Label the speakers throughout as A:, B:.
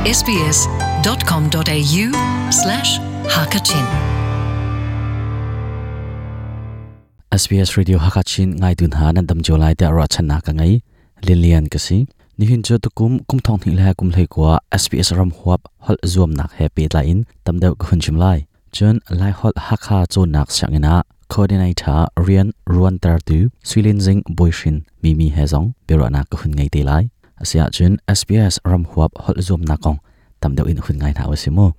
A: sbs.com.au slash hakachin
B: SBS Radio Hakachin ngai tun ha nan dam jo lai te ra channa ka ngai lilian ka si nihin chu tukum kum thong ni le kum hlei kwa SBS ram huap hol zuam nak he pe la in tamdeu ka hun chim lai chun lai hol hakha chon nak siangina coordinator rian ruan tar tu suilin jing boishin mimi hezong bero na ka hun ngai te lai asia chun SBS ram huap hol zuam nak kong tamdeu in hun ngai na wasimo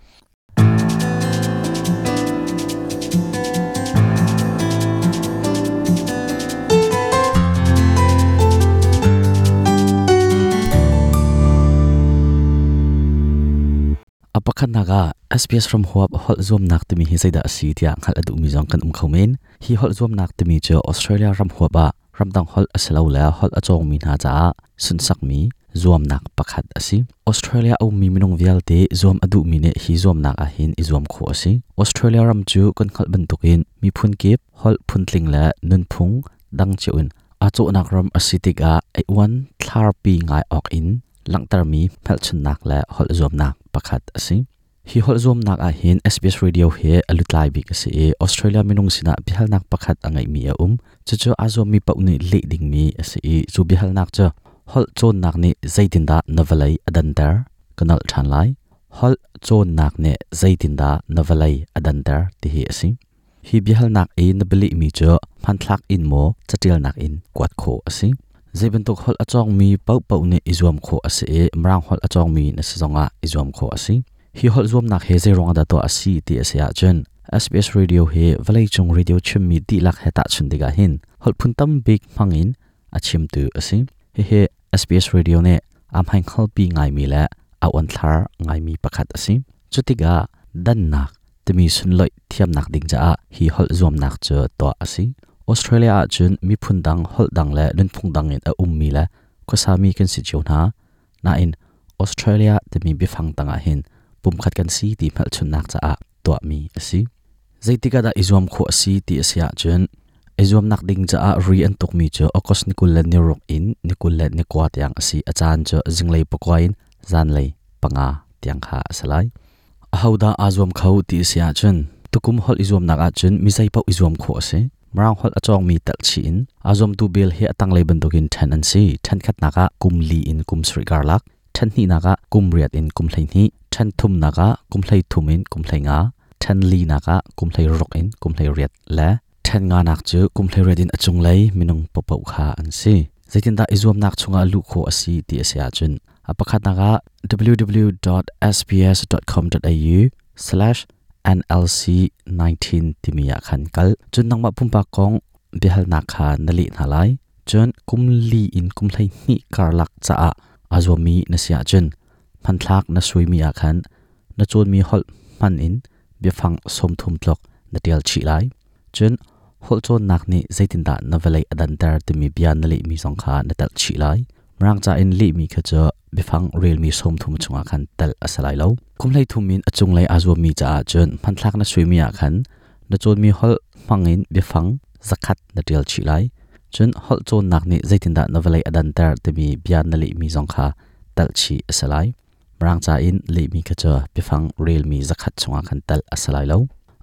B: apakhat naga SBS from huap hol zuam nak timi hi zaida asi tia ngal adu mi zong kan um khomen hi hol zuam nak timi chu Australia ram huap a ramdang hol asalo la hol achong mi na cha sun sak mi zuam nak pakhat asi Australia au mi minung vialte zuam adu mi ne hi zuam nak a hin i zuam kho asi Australia ram chu kan khal bantukin mi phun kip hol phuntling la nun phung dang cheun a cho nak ram asi tika ai wan thlar pi ngai ok in langtar mi phelchun nak la hol zuam nak pakhat asi hi hol zuam nak a hin SBS radio he alutlai bik ase e Australia minung sina bihal nak pakhat angai mi a um chu chu azom mi pauni le ding mi ase e chu bihal nak cha hol chon nak ni zaitin da navalai adantar kanal than lai hol chon nak ne zaitin da navalai adantar ti hi ase hi bihal nak e nabili mi chu phan thlak in mo chatil nak in kwat kho ase zaibantuk hol achong mi pau pau ne izuam kho ase e mrang hol achong mi na sizonga izuam kho ase hi hol zuam nak he zai rong da to asi ti ase a chen SBS radio he valai chung radio chim mi ti lak he ta chun diga hin hol phun tam big mangin achim tu ase he he SBS radio ne am hain khal pi ngai mi la a on thlar ngai mi pakhat ase chutiga dan nak timi sun loi thiam nak ding cha hi hol zuam nak chu to ase Australia a chun mi phun dang hol dang le nun phung dang in a um mi la khosami kan si chiu na na in Australia timi bifang tanga hin pum khat kan si ti phal chun nak cha a to mi asi zaitika da izuam kho asi ti asia chun izuam nak ding cha a ri an tuk mi chu okos nikul le niruk in nikul le nikwa tiang asi achan chu jinglei pakwain zanlei panga tiang kha asalai ahauda azuam khau ti asia chun tukum hol izuam nak a chun misai pau izuam kho ase mrang hol achong mi tal chi in azom tu bel he atang lei bandukin than an si than khat naka kum li in kum sri garlak than ni naka kum riat in kum hlei ni than thum naka kum hlei thum in kum hlei nga than li naka kum hlei rok in kum hlei riat la than nga nak chu kum hlei riat in achung lei minung popau kha an si zaitin da izuam nak chunga lu kho asi ti asia chun apakhat naka www.sbs.com.au/nlc19 timia khan kal chun nangma pumpa kong bihal na kha nali na lai chun kum li in kum hlei ni karlak cha a azomi na sia chun phan thlak na suimi a khan na chon mi hol man in biafang som thum tlok na tel chi lai chun hol chon nak ni zaitin da na velai adantar timi bia na le mi song kha na tel chi lai mrang cha in le mi kha cha bifang rel mi som thum chunga khan tel asalai lo kumlai thumin achung lai azo mi cha chun phan thlak na suimi a khan na chon mi hol mangin bifang zakhat na tel chi lai chun hol chon nak ni zaitin da na velai adantar timi bia na le mi song kha tel chi asalai mrang cha in le mi kha cha bifang rel mi zakhat chunga khan tel asalai lo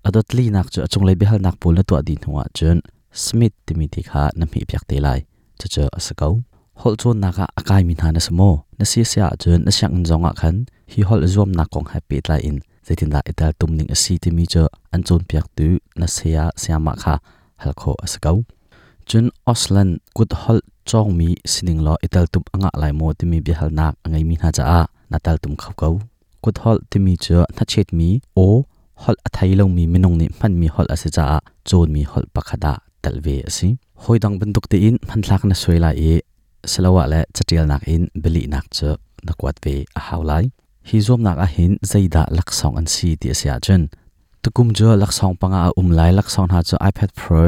B: adot li nak chu achung lai bihal nak pul na to din huwa chun smith timi ti kha na mi pyak te lai chu chu asakau hol chon naka akai min hana samo na si sia chun na siang zonga khan hi hol zuam na kong happy lai in zaitin da ital tumning asi ti mi chu an chon piak tu na sia siama kha halkho asakau chun oslan kut hol chong mi sining lo ital tum anga lai mo ti mi bihal nak angai mi na cha a natal tum khau kau kut hol ti mi chu na chet mi o hol athai lo mi minung ni man mi hol ase cha a chon mi hol pakhada talve asi hoidang banduk te in phan thlak na soila e salawa le chatial nak in beli nak chu nakwat ve a haulai hi zom nak a hin zaida laksong an si ti asia chun tukum chu laksong panga a umlai laksong ha chu iPad Pro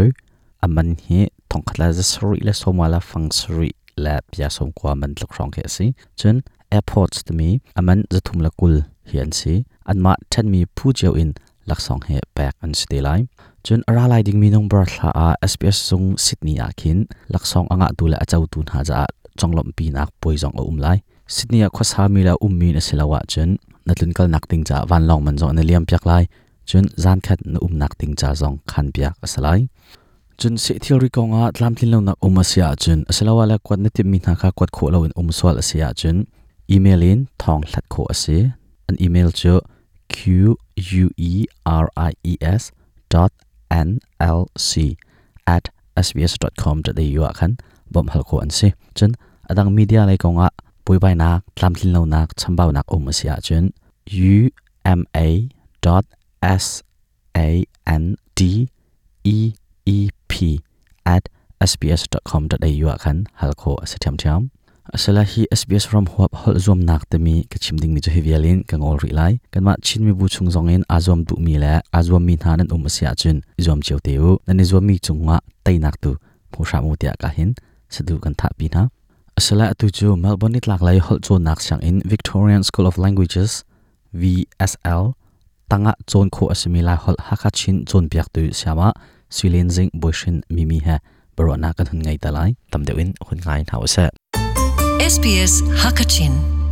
B: aman hi thongkhatla za sri le somala fang sri la pya som kwa man tlok rong ke si chun AirPods to mi aman zathum la kul hi an si anma than mi phu cheu in laksong he pek an si te lai chun aralai ding mi nong bar thla a SBS sung Sydney a khin laksong anga tu la achau tu na ja chonglom pi nak poizong a um lai Sydney ah khuasa mi le ummi na si lo ahcun na tlunkalnak ding caah vanlawng man zong an i liam piak lai. Cun zan khat na umnak ding ca zong khan piak a si lai. Cun seh thilri kongah tlamtlin lonak um a si ahcun asiloah le kuat na timhmi hna kha kuat khawh loin um sual a si ahcun email in thawng hlat khawh a si. An email cu queries dot nlc at sbs.com.au ah khan bawmh hal khawh an si. Cun adang media lei kongah buaibainak, tlamtlin lonak, chambaunak um a si ahcun uma dot s a n d e e p at sbs.com.au ah khan hal khawh a si ṭhiamṭhiam. Asala hi SBS ram huap holh zuamnak timi ka chim dingmi cu hi vial in ka ngol rih lai. Kanmah Chin mibu chung zong in aa zuam duhmi le aa zuammi hna nan um a si ahcun i zuam cio te u. Nan i zuammi cungah teinak tu hmu hram u tiah ka hin sadu kan thahpi hna. Asala atu cu Melbourne nitlak lei holh cawnnak sianginn Victorian School of Languages VSL tangah cawn khawh a simi Laiholh Hakha Chin cawnpiaktu sayama Sui Zing Bawihrin Mimi he biaruahnak kan hun ngei te lai. Tam deuh in hun ngai hna usih.
A: SBS Hakachin.